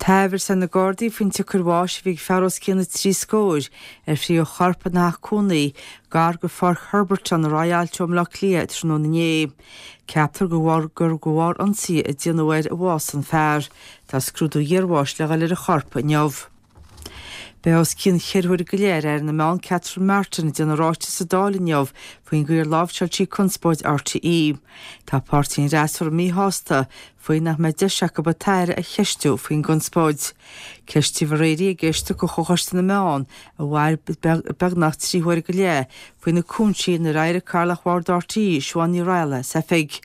Tá amhras ar na Gardaí faoin tsiocair bháis a bhí ag fear os cionn na dtrí scóir ar frítheadh a chorp ina theach cónaí gar go Pháirc Herberton ar aghaidh ó Bhaile Átha Cliath tráthnóna inné. Ceaptar gur de bharr ionsaí a déanadh air a bhásaigh an fear. Tá scrúdú iarbháis le dhul ar an chorp inniu. Beidh os cionn cheithre huaire go leith ar Aire na Meán Catherine Martin ag déanamh ráiteas sa Dáil inniu faoin gcaoi ar láimhseáil sí conspóid RTÉ. Tá páirtí an fhreasúra míshásta faoi nach mbeidh deis acu an tAire a cheistiú faoin gconspóid. Ceistíodh aréir í ag éisteacht de Chomhchoiste na Meán a mhair beagnach 3 huaire go leith faoi na cúinsí inar éirigh Cathaoirleach Bhord RTÉ, Siobhán Ní Raghallaigh, as oifig.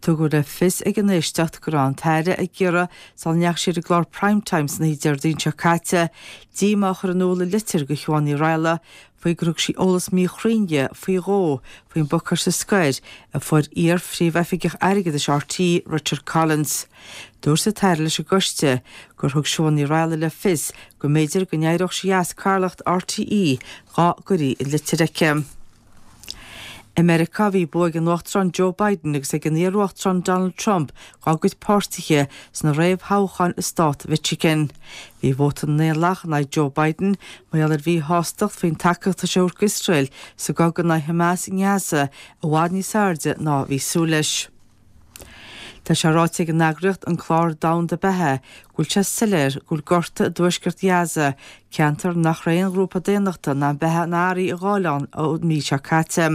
Tugadh le fios ag an éisteacht go raibh an tAire ag iarraidh Sula ndeachaigh sí ar an gclár Prime Time san oíche Déardaoin seo caite, díomá a chur in iúl i litir go Shiobhán Ní Raghallaigh faoi gur thug sí eolas míchruinn di faoi dhó faoin bpacáiste scoir a fuair iar-phríomhoifigeach airgeadais RTÉ, Richard Collins. Dúirt an tAire leis an gcoiste gur thug Siobhán Ní Raghallaigh le fios go mb'fhéidir go n-éireodh sí as cathaoirleacht RTÉ dá gcuirí an litir aici. I Meiriceá, bhí bua ag an Uachtarán Joe Biden agus ag an iar-Uachtarán Donald Trump dá gcuid páirtithe sna réamhthoghcháin i stát Mhichigan. Bhí vóta na nDaonlathach in aghaidh Joe Biden mar gheall ar mhíshástacht faoin tacaíocht atá sé a thabhairt d'Iosrael sa gcogadh in aghaidh Hamas i nGaza i bhfad níos airde ná a bhí súil leis. Tá sé ráite ag an eagraíocht An Clár Domhanda Beatha go bhfuil sé soiléir go bhfuil gorta i dtuaisceart Ghaza, ceantar nach raibh aon ghrúpa daonnachta in ann beatha ná earraí a ghabháil ann ón mí seo caite.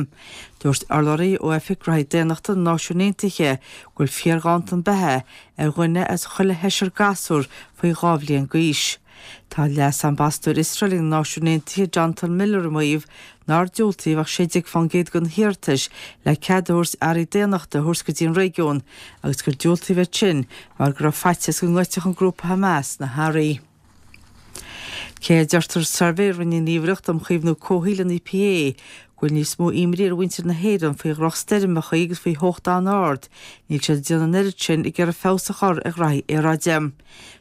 Dúirt urlabhraí ó Oifig Gnóthaí Daonnachta na Náisiún Aontaithe go bhfuil fíorghanntan beatha ar dhuine as chuile sheisear gasúr faoi 2 bhliain d'aois. Tá Leas-Ambasadóir Iosrael ag na Náisiúin Aontaithe Jonathan Miller ag maíomh nár diúltaíodh ach 16% de na hiarratais le cead a thabhairt earraí daonnachta a thabhairt go dtí an réigiún agus gur diúltaíodh iad sin mar go raibh faitíos go ngoidfeadh an grúpa Hamas na hearraí. Cé a deirtear i suirbhé a rinne an Ghníomhaireacht um Chaomhnú Comhshaoil, an EPA, go bhfuil níos mó imní ar mhuintir na hÉireann faoi dhrochstoirmeacha agus faoi theocht an-ard, níl siad ag déanamh an oiread sin ag iarraidh feabhas a chur ar ghraithí aeráide.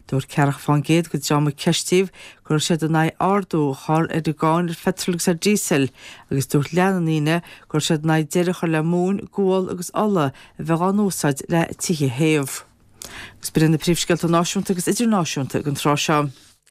Dúirt 40% den dream a ceistíodh go raibh siad in aghaidh ardú a chur ar an gcáin ar pheitreal agus ar dhíosal agus dúirt leath na ndaoine go raibh siad in aghaidh deireadh a chur le móin, gual agus ola a bheith á n-úsáid le tithe a théamh. Agus b'in iad na príomhscéalta náisiúnta agus idirnáisiúnta ag an tráth seo.